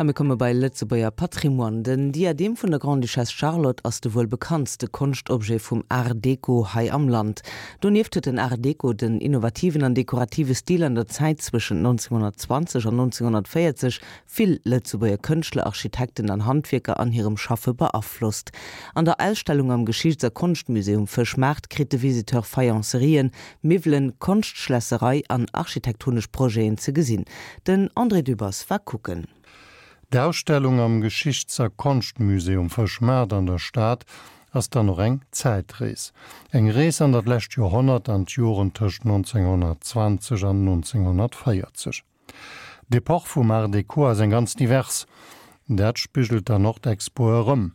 A mir komme bei Lëtzebuerger Patrimoine. Den Diadem vun der Grande-Duchesse Charlotte ass de wuel bekanntste Konschtobjet vum Art Deco hei am Land. Donieft huet den Art Deco, den innovativen an dekorative Stil an der Zäit zwëschent 1920 an 1940, vill Lëtzebuerger Kënschtler, Architekten an Handwierker an hirem Schaffe beaflosst. An der Ausstellung am Geschichts a Konschtmusée um Fëschmaart kritt de Visiteur Faïencerien, Miwwelen, Konschtschlässerei an architektonesch Projeten ze gesinn. Den André Dübbers war kucken. D'Ausstellung am Geschichts a Konschtmusée um Fëschmaart an der Stad ass dann och eng Zäitrees. Eng Rees an dat lescht Joerhonnert, an d'Joren tëscht 1920 an 1940. D'Epoch vum Art Deco ass eng ganz divers. Dat spigelt dann och d'Expo erëm.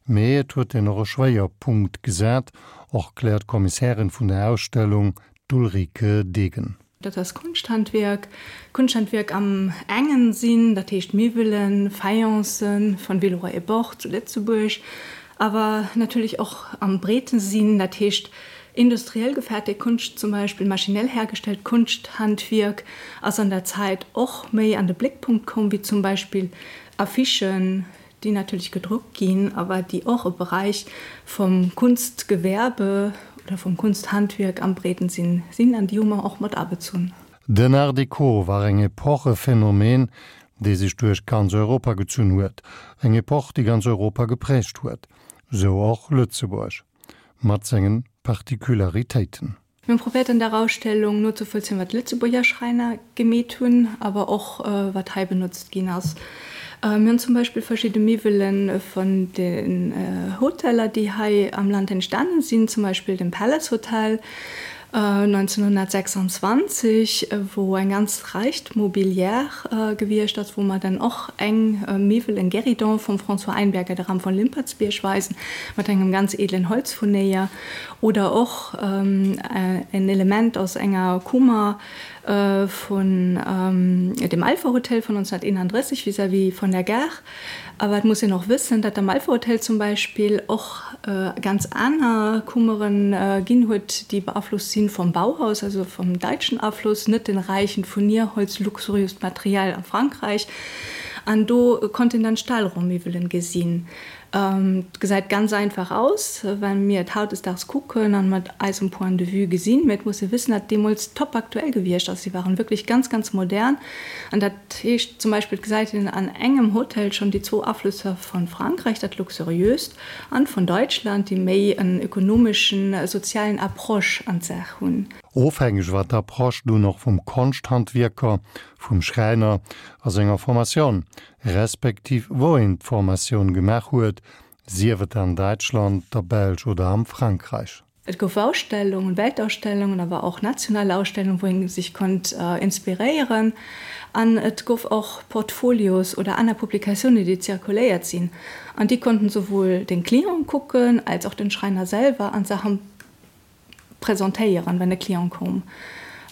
Mee et huet een och e Schwéierpunkt gesat, erkläert d'Kommissärin vun der Ausstellung, d'Ulrike Degen. Dat ass Konschthandwierk. Konschthandwierk am engen Sinn, dat heescht Miwwelen, Faïencen von Villeroy et Boch zu Lëtzebuerg, awer natierlech och am breeten Sinn, dat heescht Industriell gefäertegt Konscht, zum Beispill maschinell hergestellt Konschthandwierk, ass an der Zäit och méi an de Bléckpunkt komm, wéi zum Beispill Affichen, déi natierlech gedruckt ginn, awer déi och e Beräich vum Kunstgewerbe oder vum Kunsthandwierk am breeden Sinn sinn, an déi hu mer och mat abezunn. Den Art Deco war eng Epoch, e Phänomen, dee sech duerch ganz Europa gezunn huet, eng Epoch, déi ganz Europa geprägt huet, sou och Lëtzebuerg. Mat sengen Particularitéiten. Mir hunn probéiert an der Ausstellung nozevollzéien wat d'Lëtzebuerger Schräiner gemeet hunn, awer och wat hei benotzt ginn ass. Mir hunn zum Beispill verschidde Miwwele vun den Hoteller déi hei am Land entstanen sinn, zum Beispill dem Palace Hotel 1926, wou eng ganz räicht Mobilière gewiescht ass, wou mer dann och eng Miwwel, en Guéridon vum François Einberger, de Ram von Limpertsbierg weisen, mat engem ganz edlen Holzfurnéier, oder och en Element aus enger Kummer vun dem Alpha Hotel vun 1931 vis-à-vis von der Gare. Awer et muss een och wëssen, datt am Alpha Hotel zum Beispill och ganz aner Kummeren ginn huet, déi beaflosst sinn vom Bauhaus, also vom daitschen Afloss, net den räichen Furnierholz, luxuriöst Material a Frankräich. An do konnt een dann Stahlrohrmiwwelen gesinn. Et gesäit ganz einfach aus, well mir et hautdesdaags kucken an mat eisem Point de vue gesinn. Mee et muss ee wëssen, datt deemools top aktuell gewiescht ass. Si waren wierklech ganz, ganz modern. An dat heescht zum Beispill, et gesäit een an engem Hotel schonn déi zwou Aflësser von Frankräich, dat Luxuriöst, an von Deutschland, déi méi en ökonomeschen, sozialen Approche an d'Saach hunn. Ofhängeg war d'Approche dunn och vum Konschthandwierker, vum Schräiner a senger Formation, respektiv wou een d'Formatioun gemaach huet, sief et an Däitschland, der Belsch oder am Frankräich. Et gouf Ausstellungen, Weltausstellungen, awer och national Ausstellungen, wou een sech konnt inspiréieren. An et gouf och Portfolios oder aner Publikatiounen, déi zirkuléiert sinn. An déi konnten souwuel den Client kucken, als och den Schräiner selwer an Saachen presentéieren, wenn e Client koum.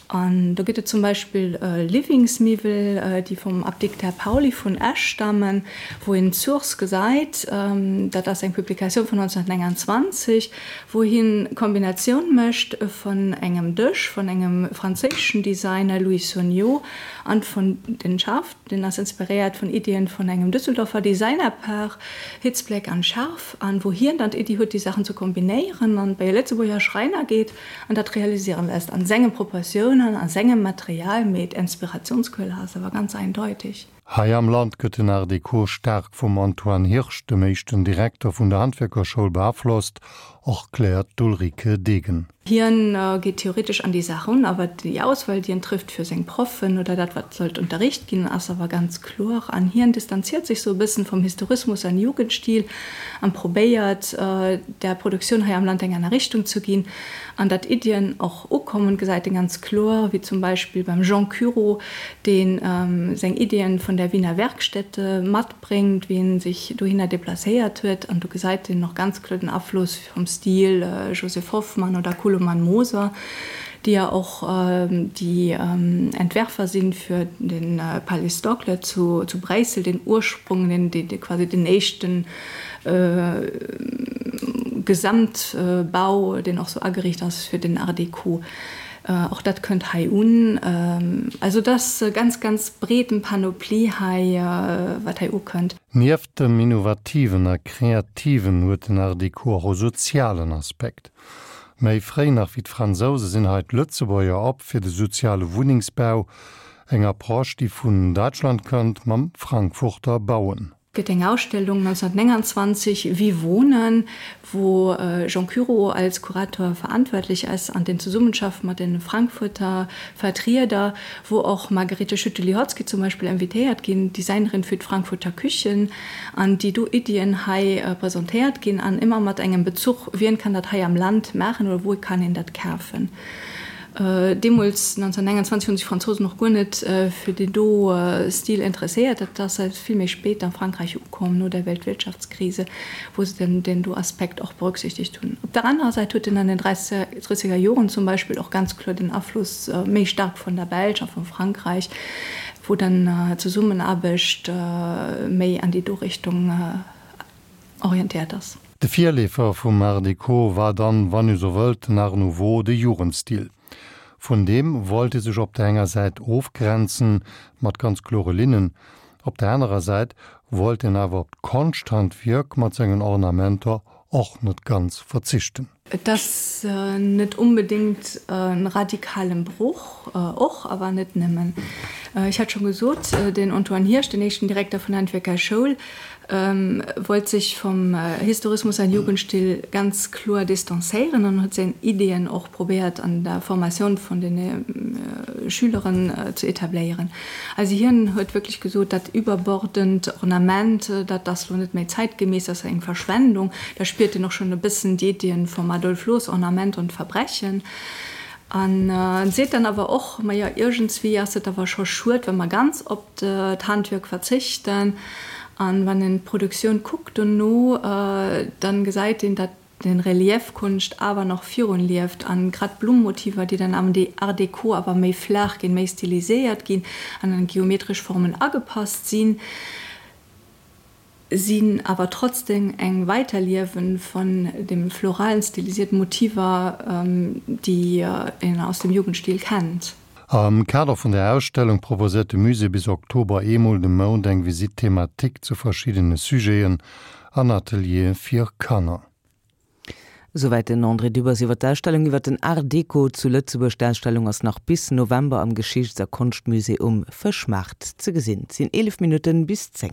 An do gëtt et zum Beispill Livingsmiwwel, déi vum Apdikter Pauly vun Esch stammen, wou een d'Source gesäit. Dat ass eng Publikatioun vun 1929, wou hien d'Kombinatioun mécht vun engem Dësch vun engem franséischen Designer, Louis Sognot, an vun den Schaff. Deen ass inspiréiert vun Iddien vun engem Düsseldorfer Designerpaar, Hitzbleck an Scharf, an wou hien dann d'Iddi huet, déi Saachen ze kombinéieren an bei e Lëtzebuerger Schräiner geet an dat realiséieren lässt, an senge Proportiounen, a sengem Material, mee d'Inspirationsquelle ass awer ganz eindeutig. Hei am Land gëtt den Art Deco staark vum Antoine Hirsch, dem éischten Direkter vun der Handwierkerschoul, beaflosst, erkläert d'Ulrike Degen. Hien geet theoretesch an déi Saach erun, awer déi Auswahl, déi en trëfft fir seng Proffen oder dat, wat sollt unterricht ginn, ass awer ganz kloer. An hien distanziert sech sou e bëssen vum Historismus an Jugendstil an probéiert, der Produktioun hei am Land eng aner Richtung ze ginn. An datt Iddien och ukommen, gesäit en ganz kloer, wéi zum Beispill beim Jean Cureau, dee seng Iddien vun der Wiener Werkstätte matbréngt, wéi en sech dohinner deplacéiert huet. An do gesäit een och ganz kloer den Afloss Vum Stil Joseph Hoffmann oder Koloman Moser, déi ja och déi Entwerfer sinn fir de Palais Stoclet zu Bréissel, den Ursprung, den quasi den éischten Gesamtbau, deen och sou ageriicht ass fir den Art Déco. Och dat kënnt hei un. Also et ass e ganz, ganz breeten Panoplie hei, wat hei ukënnt. Nieft dem Innovativen a Kreativen huet den Art Deco och e sozialen Aspekt. Méi fréi nach wéi d'Fransouse sinn hei d'Lëtzebuerger op fir de soziale Wunnengsbau, eng Approche déi vun Däitschland kënnt mam Frankfurter Bauen. Gëtt eng Ausstellung 1929 Wie wohnen, wou Jean Cureau als Kurator verantwortlich ass an den Zesummenschaft mat den Frankfurter Vertrieder, wou och Margarete Schütte-Lihotzky zum Beispill invitéiert ginn, Designerin für d'Frankfurter Küchen, an déi do Iddien hei presentéiert ginn an ëmmer mat engem Bezuch, wien kann dat hei am Land maachen oder wou kann een dat kafen. Deemools, 1929, hunn sech d'Fransousen och guer net fir deen do Stil interesséiert. Dat ass eréischt vill méi spéit a Frankräich ukomm, no der Weltwirtschaftskrise, wou se dann deen do Aspekt och berücksichtegt hunn. Op der anerer Säit huet en an den dreissiger Joren zum Beispill och ganz kloer den Afloss méi staark vun der Belsch a vu Frankräich, wou dann d'Zesummenaarbecht méi an déi do Richtung orientéiert ass. De Virleefer vum Art Deco war dann, wann ee sou wëllt, den Art Nouveau, de Jugendstil. Vun deem wollt ee sech op der enger Säit ofgrenzen, mat ganz klore Linnen, op der anerer Säit wollt een awer op d'Konschthandwierk mat sengen Ornamenter och net ganz verzichten. Et ass net onbedéngt e radikalen Broch, och, awer net nëmmen. Ech hat scho gesot, den Antoine Hirsch, den éischten Direkter vun der Handwierkerschoul, wollt sech vum Historismus an Jugendstil ganz kloer distanzéieren an huet seng Ideeën och probéiert an der Formatioun vun de Schüleren ze etabléieren. Also hien huet wierklech gesot, dat überbordend Ornament, dat ass lo net méi zeitgemäss, dat ass eng Verschwendung. Da spiert een och schonn e bëssen d'Iddien vum Adolf Loos, Ornament und Verbrechen. An seet dann awer och, majo iergendswéi ass et awer scho schued, wa mer ganz op d'Handwierk verzichten. An wann een d'Produktioun kuckt dono, dann gesäit een, dat den Reliefkonscht awer nach virun lieft an grad d'Blummotiver, déi dann am Art Déco awer méi flaach ginn, méi stiliséiert ginn an an geometresch Formen agepasst sinn, sinn awer trotzdem eng Weiterliewen von dem floralen stilisierten Motiver, déi een aus dem Jugendstil kennt. Am Kader vun der Ausstellung proposéiert de Musée bis Oktober eemol de Mount eng Visite thématique zu verschiddene Sujeten an Ateliere fir Kanner. Esouwäit den André Dübbers iwwer d'Ausstellung iwwer den Art Deco zu Lëtzebuerg. D'Ausstellung ass nach bis November am Geschichts a Konschtmusée um Fëschmaart ze gesinn. Et sinn 11 Minutten bis 10.